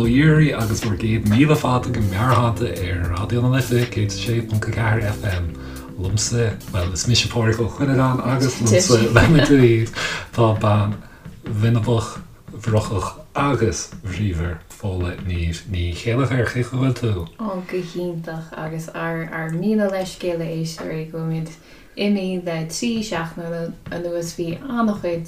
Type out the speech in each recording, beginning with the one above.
Dhíoraí agus bhur gcéad míle fáilte go Meabhairshláinte ar Raidió na Life 106.4 FM. Liomsa, bhuel, is mise Pádraig Ó Cuinneagáin agus liomsa lena dtaobh tá bean bhinbeach, bhrocach agus bhríomhar Fódhla Niamh Ní Chéilleachair. Cén chaoi a bhfuil tú? Ó, go hiontach agus ár ár míle leithscéal a éisteoirí go bhfuilimid imithe le 3 seachtaine anuas. Bhí an-chuid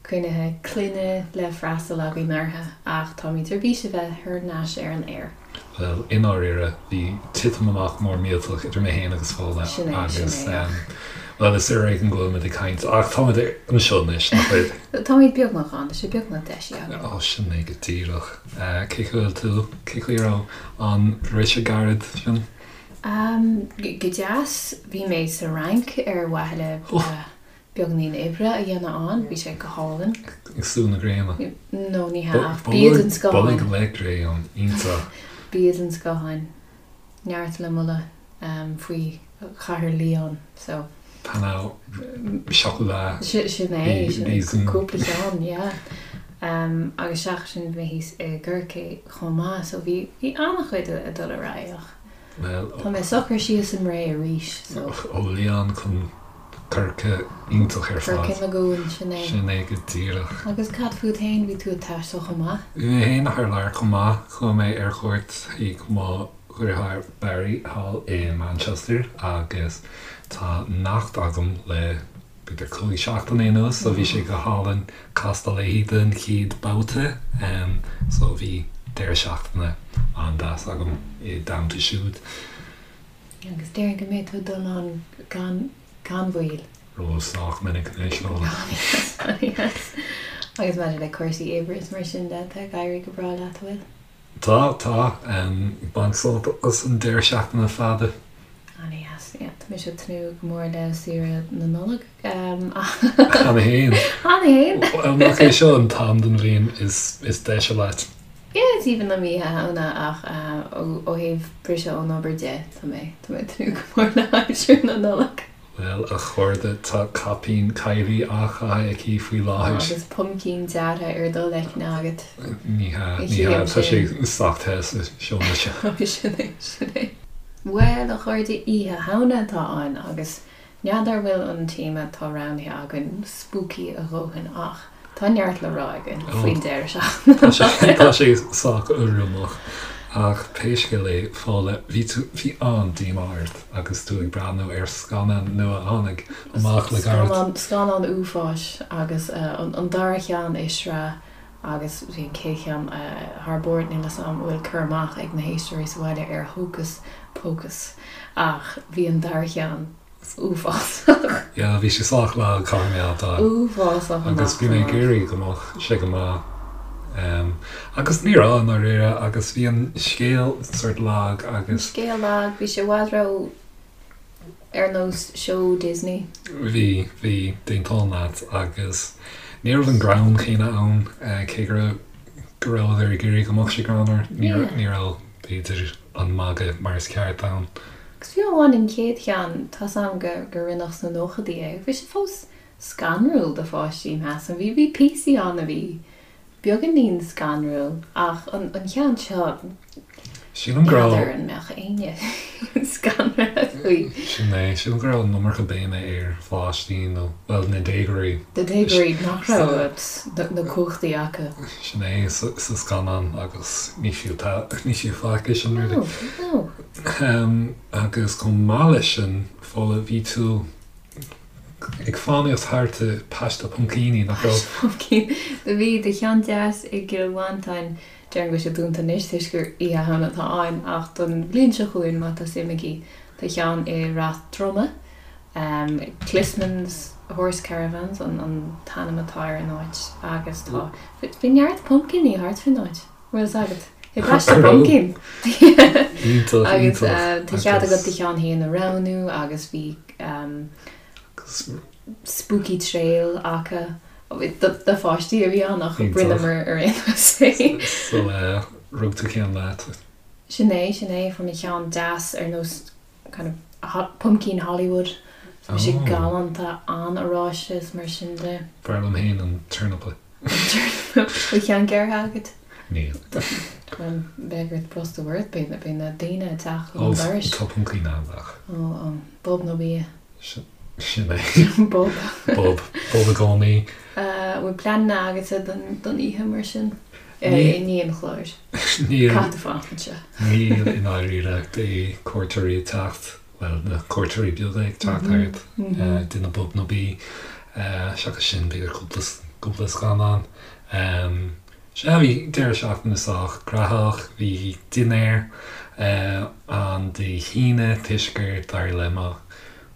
cruinnithe clainne le freastal againn orthu ach táimid ar bís a bheith thar n-ais ar an aer. Bhuel, i ndáiríre, bhí titim amach mór millteach idir mé féin agus Fódhla Sin é, sin agus, é. bhuel, is ar éigean go bhfuilimid ag caint ach táimid anseo anois, nach bhfuil? Táimid beagnach ann, tá sé beagnach deisithe againn. Ó, sin é go díreach. Cén chaoi a bhfuil tú? Cén chaoi a raibh an briseadh gairid sin? Go deas. Bhí mé sa Fhrainc ar mhaithe le beagáinín oibre a dhéanamh ann. Bhí sé go hálainn. Ag sú na gréine? No, ní hea, ach bia den scoth ann. Bolg le gréin, iontach. Bia den scoth ann. Neart le moladh faoi chathair Lyon, so. Pain au chocolat. Sin é, sin é, cúpla ceann, yeah. Agus seachas sin bhí mé thíos i gCorcaigh chomh maith, so bhí an-chuid ag dul ar aghaidh ach. Bhuel, Tá mé socair síos i mBré arís, so. Ó Lyon chun Corca, iontach ar fad. Corca na gCuan, sin é. Sin é go díreach. Agus cad fút fhéin, bhí tú ag taisteal chomh maith? Bhí mé fhéin thar lear chomh maith. Chuaigh mé ar cuairt chuig mo dheartháir Barry thall i Manchester agus tá neacht agam le b'fhéidir 5 seachtaine anuas so bhí sé go hálainn castáil léi don chéad babhta so bhí deireadh seachtaine an-deas agam i dteannta siúd. Agus déarfainn go mbeidh tú ag dul ann gan gan mhoill. Ró sách minic anois, Fódhla. An-deas. Agus maidir le cúrsaí oibre is mar sin de, tá ag éirí go breá leat, an bhfuil? Tá, tá. Ag baint sult as an deireadh seachtaine fada. An-deas, yeah. Tá mise ag tnúth go mór le saoire na Nollag. Cheana fhéin. Cheana fhéin! Bhuel, nach é seo an t-am den bhliain is deise leat? Yeah, is aoibhinn liom Oíche Shamhna ach ó thaobh briseadh ón obair de, tá mé, tá mé ag tnúth go mór le haimsir na Nollag. Bhuel, a chairde, tá caipín Kylie á chaitheamh aici faoi láthair. Agus puimcín deartha ar do leicne agat. Ní hea, ní hea, tá sé sách te sa seomra seo. Sin é, sin é. Bhuel, a chairde, Oíche Shamhna atá ann agus n'fheadar bhfuil an téama atá roghnaithe againn spooky a dhóthain ach Tá neart le rá againn faoin deireadh seachtaine. Tá sé sách urramach. Ach pé scéal é, Fódhla, bhí tú, bhí an-díomá ort agus tú ag breathnú ar scannán nua a tháinig amach le gairid. Scannán, scannán uafáis agus an dara cheann i sraith agus bhí an chéad cheann thar barr. Níl a fhios agam an bhfuil cur amach ag na héisteoirí sa bhaile ar Hocus Pocus ach bhí an dara cheann uafásach. Yeah, bhí sé sách lag, caithfidh mé a admháil. Uafásach amach Agus bhí mé ag iarraidh go mbeadh sé go maith. Agus ní raibh, i ndáiríre, agus bhí an scéal sort lag agus. An scéal lag, bhí sé i bhfad ró ar nós seó Disney. Bhí, bhí, d'aontóinn leat agus ní raibh an greann céanna ann, cé go raibh, go rabhadar ag iarraidh go mbeadh sé greannmhar, ní raibh, b'fhéidir, an magadh mar is ceart ann. Agus fiú amháin an chéad cheann, tá's a'm go gur rinneadh sna nóchaidí é, bhí sé fós scanrúil do pháistí, measaim. Bhí, bhí píosaí ann a bhí beagáinín scanrúil ach an, an cheann seo, Sílim go raibh. n'fheadar an mbeadh éinne scanraithe faoi. Sin é, sílim go raibh an iomarca béime ar pháistí nó, bhuel, na déagóirí. Na déagóirí nach raibh na cumhachtaí acu. Sin é, sa scannán agus ní fiú, ní fiú faic é sin really. No, no. Agus chomh maith leis sin, Fódhla, bhí tú ag fánaíocht thart i bpaiste puimcíní, nach raibh? Paiste puimcíní. Do bhí, do cheann deas i gCill Mhantáin, déarfainn go bhfuil sé dúnta anois toisc gur Oíche Shamhna atá ann, ach don bhliain seo chugainn, má tá suim agaibh, tá ceann i Ráth Droma, Clissman's Horse Caravans an t-ainm atá ar an áit agus tá, bhí neart puimcíní thart faoin áit. Bhfuil fhios agat? I bpaiste puimcín! Iontach, Agus iontach. tá cead agat do cheann féin a roghnú agus bhí spooky trail acu. Do pháistí a bhí ann ach rinneamar ar aon nós é. So rug tú ceann leat? Sin é, sin é. Fuair mé ceann deas ar nós kind of puimcín Hollywood. So bhí sé galánta, an-oráiste is mar sin de. B'fhearr liom féin an turnapa. Bhfuil ceann gearrtha agat? Níl. Bhuel, beidh ort brostú ort, beidh na daoine ag teacht chun an dorais. Ó, tá puncaí in ann ach. Ó, ó, bob nó bia. Sin é. Bob. Bob. Bob i gcónaí. An bhfuil pleananna agatsa don oíche mar sin? I ndiaidh an chláir. Níl. Caithfidh tú fanacht anseo. Níl i ndáiríre. Beidh cuairteoirí ag teacht, bhuel, na cuairteoirí beaga ag teacht thart, déanamh bob nó bí. Seachas sin, b'fhéidir cúpla scannán. Sea, bhí deireadh seachtaine sách graitheach. Bhí dinnéar ann Dé hAoine toisc gur d'éirigh le mo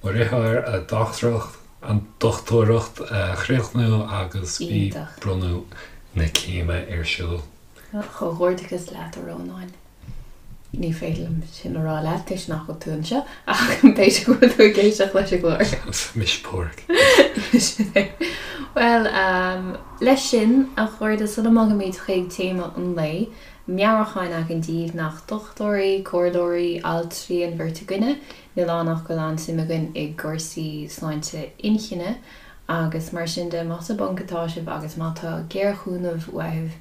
dheartháir a dochtúireacht, an dochtúireacht a chríochnú agus bhí bronnadh na céime ar siúl. Comhghairdeachas leat, a Rónáin. Ní féidir liom sin a rá leat toisc nach bhfuil tú anseo ach b'fhéidir go bhfuil tú ag éisteacht leis an gclár. Mise Pádraig. Sin é. Bhuel, leis sin, a chairde, sula mbogaimid chuig téama an lae, meabhrúchán againn daoibh nach dochtúirí, comhairleoirí, altraí an bheirt againne, níl ann ach go bhfuil an-suim againn i gcúrsaí sláinte inchinne agus mar sin de, más i bponc atá sibh agus má tá géarchúnamh uaibh,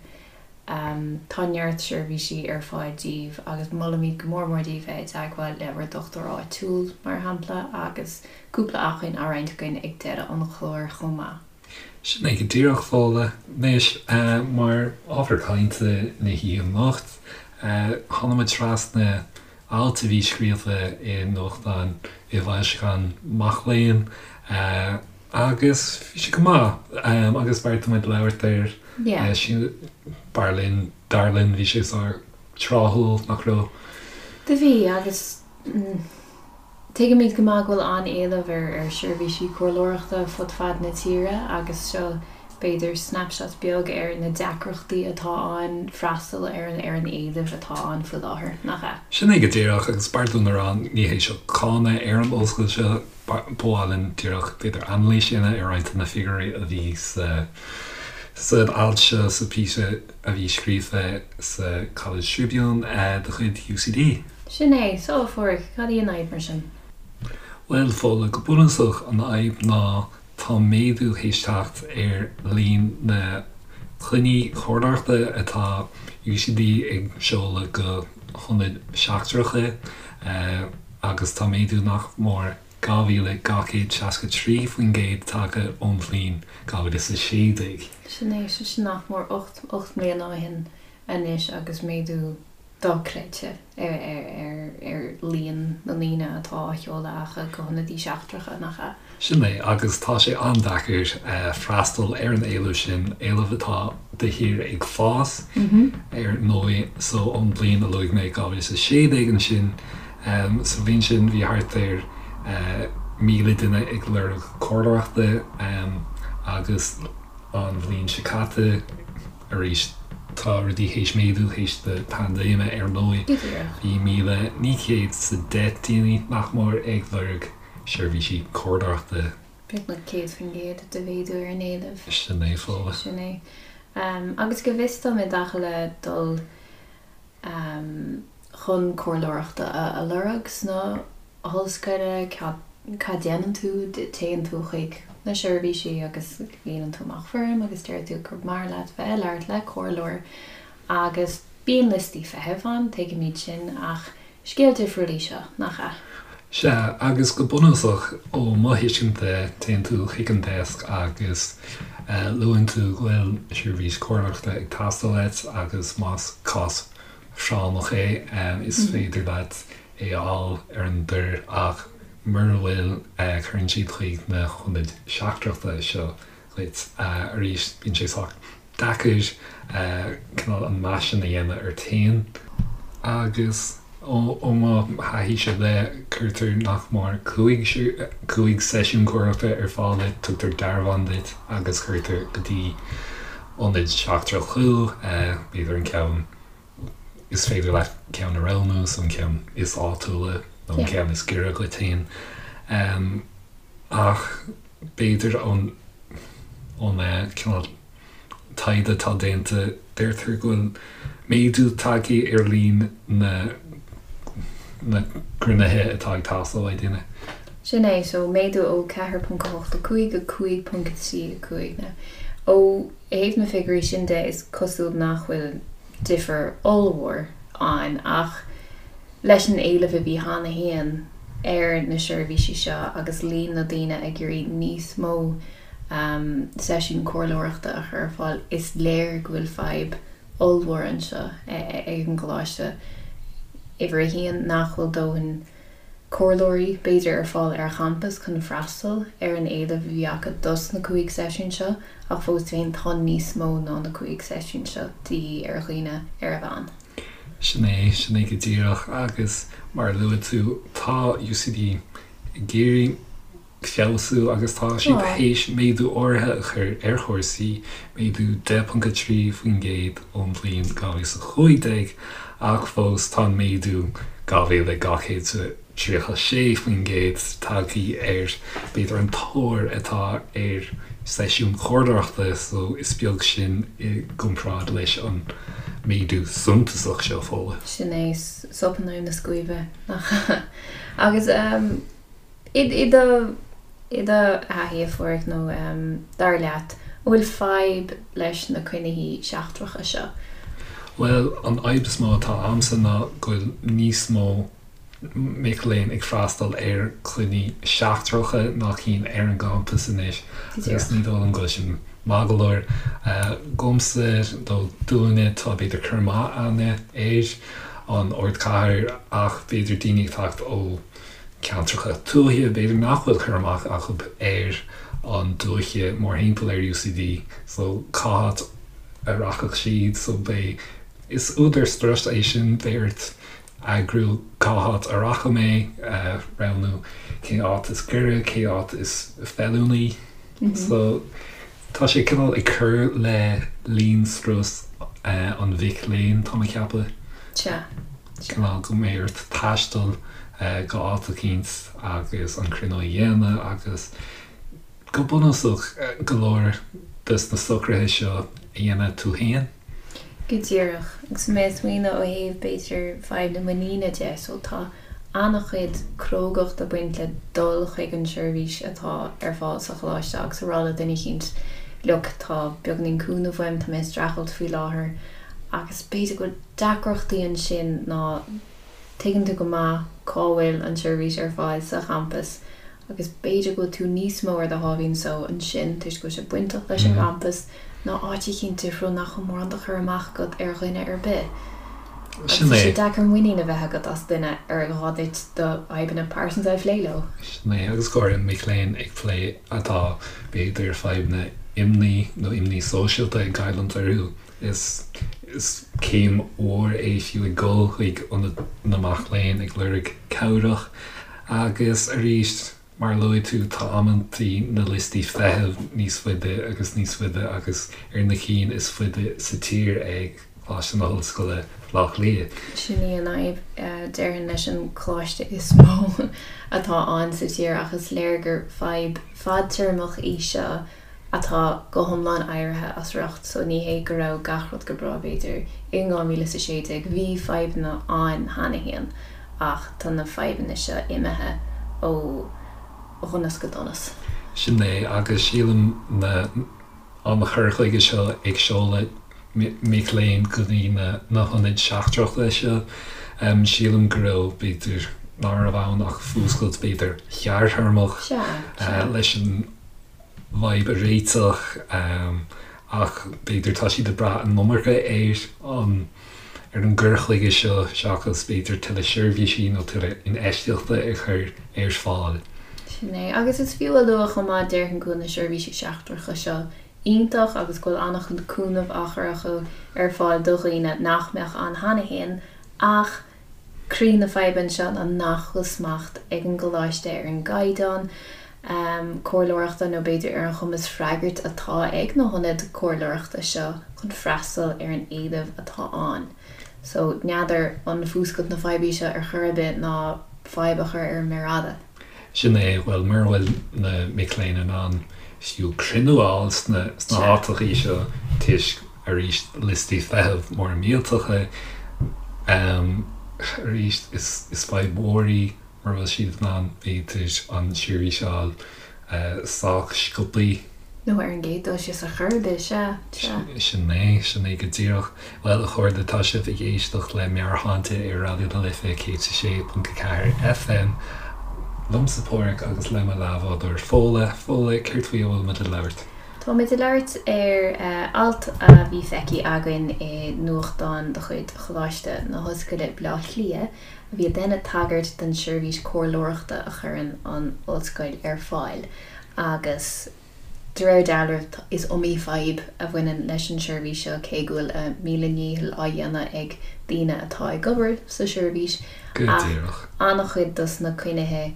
Tá neart seirbhísí ar fáil daoibh agus molaimid go mór mór daoibh bheith i dteagmháil le bhur dochtúir áitiúil, mar shampla, agus cúpla acmhainn á roinnt againn ag deireadh an chláir chomh maith. Sin é go díreach, Fódhla. Anois, mar ábhar cainte na hoíche anocht, tháinig muid trasna alt a bhí scríofa i nuachtán, i bhfoilseachán mac léinn, agus bhí sé go maith, agus bheartaigh muid labhairt air. B'fhearr linn, dar linn, bhí sé sách tráthúil, nach raibh? Do bhí, agus tuigimid go maith go bhfuil an-éileamh ar sheirbhísí comhairleoireachta fud fad na tíre agus seo b'fhéidir snapshot beag ar na deacrachtaí atá ann freastal ar ar an éileamh atá ann faoi láthair, nach ea? Sin é go díreach, agus b'fhearr dúinn a rá, ní hé seo cáineadh ar an ollscoil seo, ba mhaith linn díreach b'fhéidir anailís a dhéanamh ar roinnt de na figiúirí a bhí sa san alt seo, sa phíosa a bhí scríofa sa College Tribune de chuid UCD. Sin é. So, a Phádraig, cad í an fhadhb mar sin? Bhuel, Fódhla, go bunúsach an fhadhb ná tá méadú théis teacht ar líon na gcoinní comhairleoireachta atá UCD ag seoladh go hionaid seachtracha agus tá méadú nach mór 2,263% tagtha ón bhliain 2016. Sin é, sin nach mór 8 mbliana ó shin anois agus méadú dochreidte ar líon na ndaoine atá á sheoladh acu go hionadaí seachtracha, nach ea? Sin é, agus tá sé an-deacair freastal ar an éileamh sin, éileamh atá de shíor ag fás, ar ndóigh. So, ón bhliain a luaigh mé, 2016 ansin, sa bhliain sin bhí thart ar 1,000 duine ag lorg comhairleoireachta agus an bhliain seo caite, Arís, tá rudaí théis méadú théis na paindéime, ar ndóigh. Bhí 1,910 daoine nach mór ag lorg seirbhísí comhairleoireachta. Beagnach 100% de mhéadú ar an éileamh. Sin é, Fódhla. Sin é. Agus go bhfios dom i dtaca le dul chun comhairleoireachta a lorg sna hollscoile, cad déanann tú? Téann tú chuig na seirbhísí agus líonann tú amach foirm agus deir tú gur maith leat bheith ag labhairt le comhairleoir agus bíonn liostaí feithimh ann, tuigimid sin, ach scéal difriúil í seo, nach ea? Sea, agus go bunúsach, ó mo thuiscint de, téann tú chuig an deasc agus luann tú go bhfuil seirbhís comhairleoireachta ag teastáil uait agus más cás práinneach é, is féidir leat é a fháil ar an dtor ach mura bhfuil, cuireann siad chuig na hionaid seachtrachta seo dhuit. Arís, bíonn sé sách deacair cineál an meas sin a dhéanamh ort féin agus ó mo thaithíse de, cuirtear nach mór 5 seisiún comhairleoireachta ar fáil duit, tugtar dearbhán duit agus cuirtear go dtí ionad seachtrach thú, b'fhéidir an ceann Is féidir leat ceann a roghnú, so an ceann is áitiúla nó an ceann is giorra dhuit féin. Ach b'fhéidir ón ón cineál taighde atá déanta, deirtear go bhfuil méadú tagtha ar líon na na gcruinnithe atá ag teastáil ó dhaoine. Sin é, so méadú ó 4.85 go 5.35. Now, ó thaobh na figiúirí sin de, is cosúil nach bhfuil. difear ollmhór ann ach leis an éileamh a bhí cheana féin ar na seirbhísí seo agus líon na daoine ag iarraidh níos mó seisiún comhairleoireachta a chur ar fáil, is léir go bhfuil fadhb ollmhór anseo ag an gcoláiste. Uimhir a haon, nach bhfuil dóthain comhairleoirí, b'fhéidir, ar fáil ar champas chun freastal ar an éileamh a bhí acu dos na 5 seisiún seo, ach fós féin tá níos mó ná na 5 seisiún seo de dhíth ar dhaoine ar a mheán. Sin é, sin é go díreach agus mar a luaigh tú, tá UCD ag iarraidh feabhsú agus tá siad théis méadú áirithe a chur ar chúrsaí, méadú 10.3% ón bhliain 2015, ach fós tá an méadú 2,236% tagtha ar b'fhéidir an tóir atá ar seisiúin chomhairleoireachta so is beag sin i gcomparáid leis an méadú suntasach seo, Fódhla. Sin é, sop in aghaidh na scuaibe, nach ea? Agus. I do i do thaithí, a Pháraic, nó dar leat, an bhfuil fadhb leis na cruinnithe seachtracha seo? Bhuel, an fhadhb is mó atá a'msa ná go bhfuil níos mó mic léinn ag freastal ar chruinnithe seachtracha ná cinn ar an gcampas anois agus ní dóigh liom go bhfuil sin maith go leor. Dhomsa nó dúinne tá b'fhéidir cur amach a'inne ar an ardchathair ach b'fhéidir daoine ag teacht ó ceantracha tuaithe, b'fhéidir nach bhfuil cur amach acu ar an dúiche mórthimpeall ar UCD so cá háit a rachadh siad so beidh, is údar strus é sin, beidh ort eagrú cá háit a rachaidh mé, roghnú cén áit is gaire, cén áit is feiliúnaí so tá sé cineál ag cur le líon strus an mhic léinn, tá mé ag ceapadh. Sea. Cineál go mbeidh ort taisteal go áit eicínt agus an cruinniú a dhéanamh agus go bunúsach go leor des na socruithe seo a dhéanamh tú féin. Go díreach. Agus mé ag smaoineamh ó thaobh b'fhéidir fadhb na muiníne de, so tá an-chuid crógacht ag baint le dul chuig an seirbhís atá ar fáil sa choláiste agus a rá le duine eicínt look tá beagáinín cúnamh uaim, tá mé ag streachailt faoi láthair agus b'fhéidir go bhfuil deacrachtaí ansin ná tuigeann tú go maith cá bhfuil an tseirbhís ar fáil sa champas agus b'fhéidir go bhfuil tú níos mó ar do sháimhín só ansin toisc go bhfuil sé bainteach leis an gcampas ná áit eicínt difriúil nach bhfuil mórán de chur amach agat ar dhuine ar bith. Agus Sin tá sé é. deacair muinín a bheith agat as duine ar gá duit do fhadhbanna pearsanta a phlé leo. Sin é, agus go háirithe mic léinn ag plé atá b'fhéidir fadhbanna imní nó imní sóisialta ag goilliúint orthu. Is céim mhór é fiú ag dul chuig ionad na mac léinn ag lorg cabhrach agus arís, mar a luaigh tú, tá amantaí na liostaí feithimh níos faide agus níos faide agus ar na cinn is faide sa tír ag Coláiste na hOllscoile, Baile Átha Cliath. Sin í an fhadhb, déarfainn, leis an choláiste is mó atá ann sa tír ach is léir gur fadhb fadtéarmach í seo atá go hiomlán éirithe as riocht so ní hé go raibh gach rud go breá b'fhéidir in 2016, bhí fadhbanna ann cheana féin ach tá na fadhbanna seo imithe ó dhonas go donas. Sin é agus sílim na an chur chuige seo ag seoladh mic léinn go dtí na na hionaid seachtracha seo, sílim go raibh b'fhéidir ná raibh ann ach fuascailt b'fhéidir ghearrthéarmach leis an bhfadhb a réiteach ach b'fhéidir tá siad ag brath an iomarca ar an ar an gcur chuige seo seachas b'fhéidir tuilleadh seirbhísí nó tuilleadh infheistíochta a chur ar fáil. Sin é. Agus is fiú a lua chomh maith, déarfainn go bhfuil na seirbhísí seachtracha seo iontach agus go bhfuil an-chuid cúnamh á chur acu ar fáil do dhaoine nach mbeadh ann cheana féin ach Croí na faidhbe anseo ná nach bhfuil smacht ag an gcoláiste ar an gcaighdeán comhairleoireachta nó b'fhéidir ar an chumas freagairt atá ag na hionaid comhairleoireachta seo chun freastal ar an éileamh atá ann. So, n'fheadar an fuascailt na faidhbe í seo ar chor ar bith ná fadhb a chur ar an méar fhada. Sin é, bhuel, mura bhfuil na mic léinn in ann fiú cruinniú a fháil sna háiteachaí seo toisc, arís, liostaí feithimh móra millteacha, arís, is fadhb mhór í mura bhfuil siad in ann, b'fhéidir, an tseirbhís a fháil sách sciobthaí. Nó ar an gcéad dul síos ar chor ar bith, sea, sea. Sin é, sin é go díreach. Bhuel, a chairde, tá sibh ag éisteacht le Meabhairshláinte ar Raidió na Life 106.4 FM. Liomsa Páraic agus le mo leathbhádóir Fódhla. Fódhla, céard faoi a bhfuil muid ag labhairt? Táimid ag labhairt ar alt a bhí feicthe againn i nuachtán de chuid Choláiste na hOllscoile, Baile Átha Cliath, a bhí ag déanamh tagairt don seirbhís comhairleoireachta a chuireann an ollscoil ar fáil agus de réir dealraimh is iomaí fadhb a bhaineann leis an seirbhís seo cé go bhfuil a míle ndícheall á dhéanamh ag daoine atá ag obair sa seirbhís Go ach díreach. an-chuid dos na coinnithe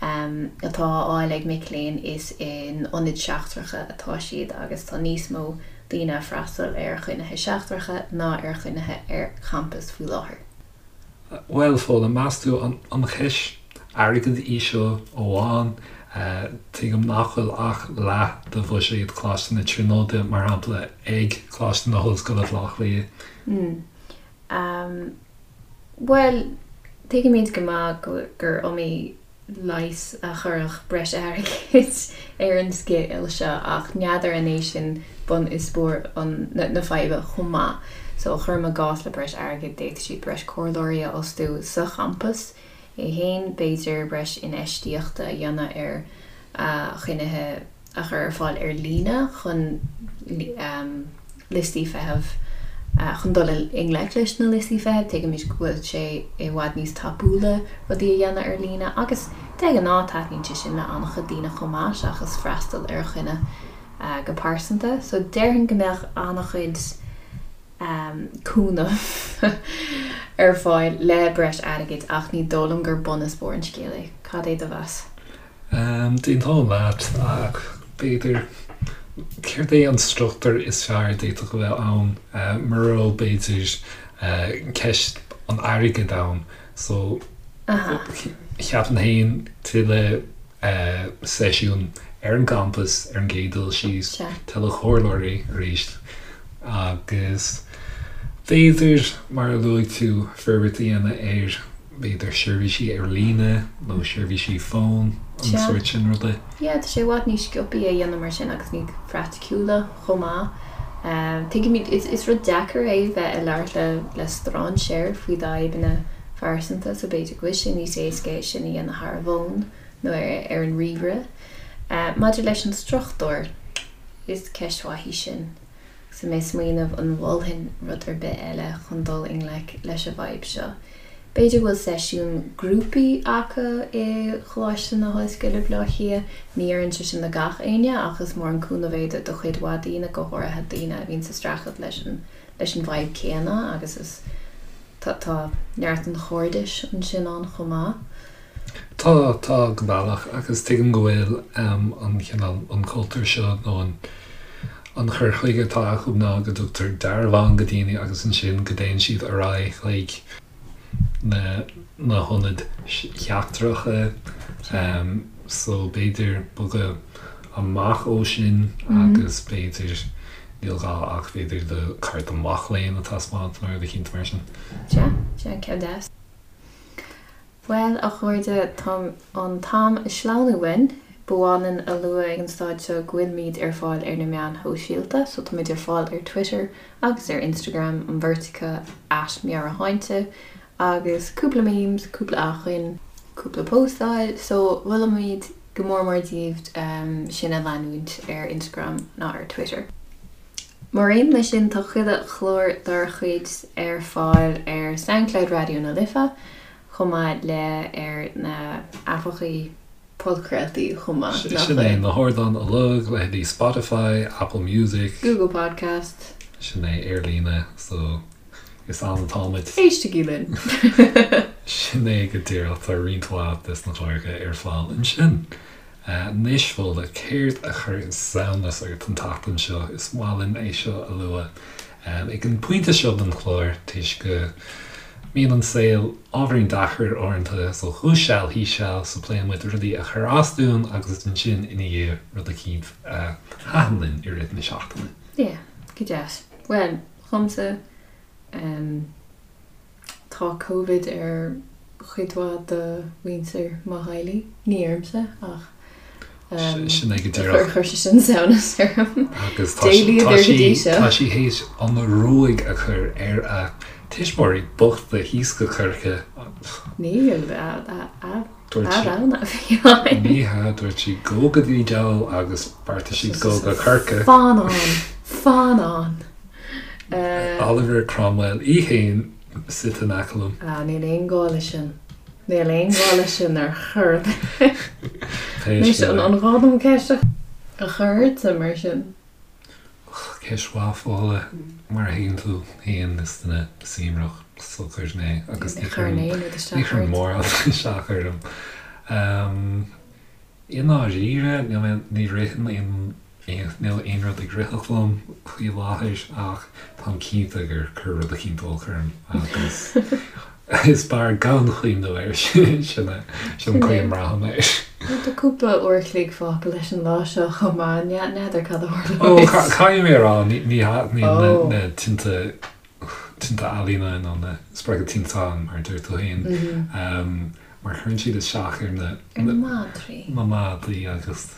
atá á fháil ag mic léinn is in ionaid seachtracha atá siad agus tá níos mó daoine ag freastal ar choinnithe seachtracha ná ar choinnithe ar champas faoi láthair. Bhuel, Fódhla, meas tú an cheist airgid í seo amháin? Tuigim nach bhfuil ach leath de bhuiséad Choláiste na Tríonóide, mar shampla, ag Coláiste na hOllscoile Bhaile Átha Cliath. Bhuel, tuigimid go maith gur iomaí leigheas a chuirfeadh breis airgid ar an scéal seo ach n'fheadar an é sin bun is barr na faidhbe chomh maith. So, cuirim i gcás le breis airgid d'fhéadfadh siad breis comhairleoirí a fhostú sa champas é féin, b'fhéidir breis infheistíochta a dhéanamh ar choinnithe a chur ar fáil ar líne chun liostaí feithimh, chun dul i ngleic leis na liostaí feithimh. Tuigimid go bhfuil sé i bhfad níos tapúla rudaí a dhéanamh ar líne agus de ghnáth taitníonn sé sin le an-chuid daoine chomh maith seachas freastal ar choinne go pearsanta. So déarfainn go mbeadh an-chuid cúnamh ar fáil le breis airgid ach ní dóigh liom gur bun is barr an scéil é. Cad é do mheas? D'aontóinn leat, ach b'fhéidir, céard é an struchtúr is fearr a d'fhéadfadh a bheith ann mura raibh, b'fhéidir, ceist an airgid ann? So, cheapfainn féin tuilleadh seisiún ar an gcampas ar an gcéad dul síos, tuilleadh comhairleoirí arís agus b'fhéidir, mar a luaigh tú, forbairt a dhéanamh ar b'fhéidir seirbhísí ar líne nó seirbhísí fóin, an sórt sin ruda. Yeah, tá sé i bhfad níos sciobthaí a dhéanamh mar sin agus níos praiticiúla chomh maith. Tuigimid, is rud deacair é bheith ag labhairt le le strainséir faoi d'fhadhbanna phearsanta so b'fhéidir go bhfuil sé níos éasca é sin a dhéanamh thar an bhfón nó ar an ríomhaire. Maidir leis an struchtúr, is ceist mhaith í sin. Agus mé ag smaoineamh an mholfainn rud ar bith eile chun dul i ngleic leis an bhfadhb seo. B'fhéidir go bhfuil seisiún grúpaí acu i Choláiste na hOllscoile Baile Átha Cliath. Ní oireann sé sin do gach éinne ach is mór an cúnamh é do chuid mhaith daoine, go háirithe daoine a bhíonn sa streachailt leis an leis an bhfadhb céanna agus is tá tá neart an chairdis ansin ann chomh maith. Tá, tá, go bealach, agus tuigim go bhfuil an cineál, an cultúr seo nó an an cur chuige atá acu ná go dtugtar dearbhán go daoine agus ansin go dtéann siad ar aghaidh chuig na na hionaid sheachtracha so b'fhéidir bogadh amach ó sin agus b'fhéidir níl gá ach b'fhéidir do cárta mac léinn a taispeáint nó rud eicínt mar sin. Sea, sea, ceann deas. Bhuel, a chairde, tá an t-am ag sleamhnú uainn. Ba mhaith linn a lua ag an staid seo go bhfuilimid ar fáil ar na meáin shóisialta, so táimid ar fáil ar Twitter agus ar Instagram, an bheirt acu, at Meabhairshláinte, agus cúpla memes, cúpla acmhainn, cúpla postáil, so mholfaimid go mór mór daoibh sinn a leanúint ar Instagram ná ar Twitter. Mar aon leis sin, tá chuile chlár dár chuid ar fáil ar Soundcloud Raidió na Life, chomh maith le ar na haipeachaí podchraoltaí chomh maith, nach Sin é, na hardáin uilig, leithéidí Spotify, Apple Music. Google Podcast. Sin é, ar líne, so is ann atáimid. Éistigí linn! Sin é go díreach, tá roinnt mhaith des na cláracha ar fáil ansin. Anois, Fódhla, céard a chuir samhnas ort an tseachtain seo? Is maith linn é seo a lua ag an bpointe seo den chlár toisc go mbíonn an saol ábhairín deacair uaireanta, so thuas seal thíos seal, so pléann muid rudaí a chuir as dúinn agus ansin ina dhiaidh rud eicínt a thaitin linn i rith na seachtaine. Yeah, go deas. Bhuel, dhomsa, em. Tá Covid ar chuid mhaith de mhuintir mo theaghlaigh, ní ormsa ach Sin é go díreach. Chuir sé sin samhnas orm. Agus tá tá sí théis an ruaig a chur ar a tuismitheoirí bochta thíos go Corcaigh. Níl, a rogha a bhí ann. Ní hea, dúirt sí gabh go dtí diabhal agus bheartaigh siad dul go Corcaigh. Fan ann! Fan ann! Oliver Cromwell í fhéin suite in aice liom. Ah, níl aon gá leis sin. Níl aon ghá leis sin ar chor ar bith. Anois, an gá dom ceist a chur ortsa mar sin? Ceist mhaith, Fódhla. Mar a thuigeann tú féin, is duine suaimhneach socair mé agus ní chuireann mórán isteach orm. I ndáiríre, níl mé, ní ritheann aon Níl aon rud ag ritheacht liom faoi láthair ach táim cinnte gur cuireadh rud eicínt olc orm agus is fearr gan cuimhneamh air sin sin an chaoi a mbraithim air. Tá cúpla uair a chloig fágtha leis an lá seo chomh maith, n'fheadar cad a tharlóidh. Ó, caithfidh mé a rá, ní thaitníonn na tinte tinte ealaíne nó na spreagadh tinteáin mar a deir tú féin mar cuireann siad isteach ar na madraí na madraí agus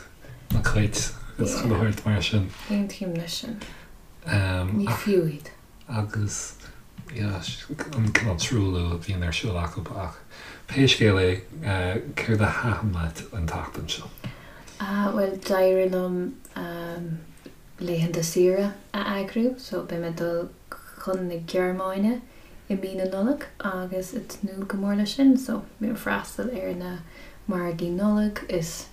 na cait agus chuile shórt mar sin. Aontaím leis sin. Ní fiú iad. Agus yeah, an cineál truailliú a bhíonn ar siúl acu ach pé scéal é, céard a thaitin leat an tseachtain seo? Ah, bhuel, d'éirigh liom laethanta saoire a eagrú so beidh mé ag dul chun na Gearmáine i mí na Nollag agus ag tnúth go mór leis sin so beidh mé ag freastal ar na margaí Nollag is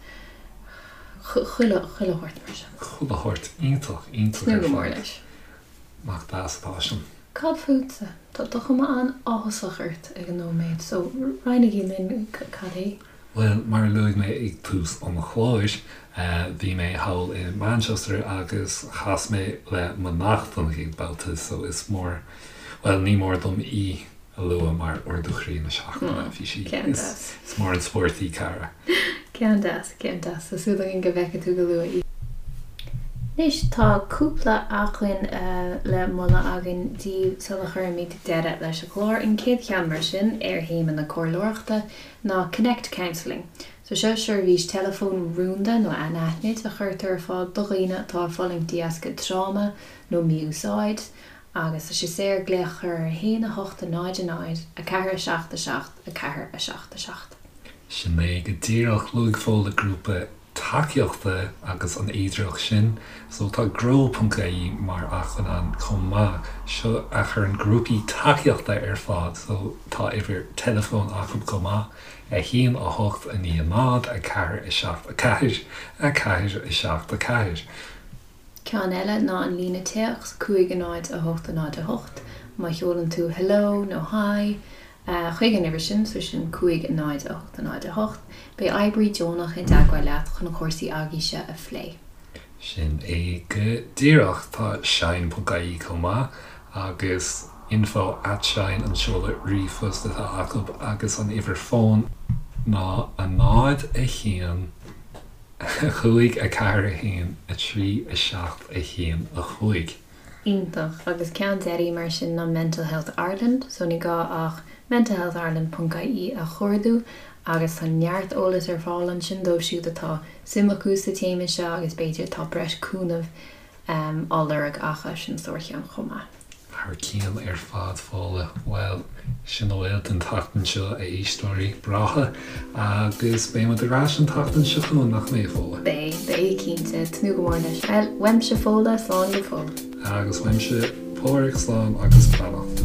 chuile chuile shórt mar sin. Chuile shórt iontach iontach ar fad. Tnúth go mór leis. Nach deas atá sin. Cad fútsa? Tá cuma an-áthasach ort ag an nóiméad so roinnigí linn cad é. Bhuel, mar a luaigh mé ag tús an chláir, bhí mé thall i Manchester agus chas mé le mo neacht don chéad babhta so is mór, bhuel, ní mór dom í a lua mar ardú chroí na seachtaine. Bhí sí, is mór an spórt í Cara. Ceann deas, ceann deas. Tá súil againn go bhfeicfidh tú go luath í. Anois tá cúpla acmhainn le moladh againn daoibh sula chuirimid deireadh leis an gclár. An chéad cheann mar sin ar théama na comhairleoireachta ná Connect Counselling. So seo seirbhís teileafóin rúnda nó anaithnid a chuirtear ar fáil do dhaoine atá ag fulaingt de dheasca tráma nó mí-úsáid agus tá sé saor glaoch a chur ar 1 8 0 0 4 7 7 4 7 7. Sin é go díreach, luaigh Fódhla grúpa tacaíochta agus an fhéidearthacht sin. So tá grow ponc ie mar acmhainn ann chomh maith. Seo a chuireann grúpaí tacaíochta ar fáil. So tá uimhir teileafóin acu chomh maith, 1 8 9 0 4 7 4 4 7 4. Ceann eile ná an líne téacs, 5 0 8 0 8. Má sheolann tú hello nó hi chuig an uimhir sin, so sin 5 0 8 0 8, beidh oibrí deonach i dteagmháil leat chun cúrsaí agaibhse a phlé. Sin é go díreach. Tá shine ponc ie chomh maith agus info at shine an seoladh ríomhphost atá acu agus an uimhir fóin ná 0 1 5 4 1 3 7 1 5. Iontach. Agus ceann deiridh mar sin ná Mental Health Ireland, so ní gá ach mentalhealthireland ponc ie a chuardú agus tá neart eolais ar fáil ansin dóibh siúd atá suim acu sa téama seo agus b'fhéidir atá breis cúnaimh á lorg acu, sin sárcheann chomh maith. Thar cionn ar fad, Fódhla. Bhuel, sin a bhfuil don tseachtain seo, a éisteoirí breátha, agus beidh muid ar ais an tseachtain seo chugainn, nach mbeidh, a Fhódhla? Beidh, beidh, cinnte. Tnúth go mór leis. Bhuel, uaimse Fódhla, slán go fóill. Agus uaimse Pádhraic, slán agus beannacht.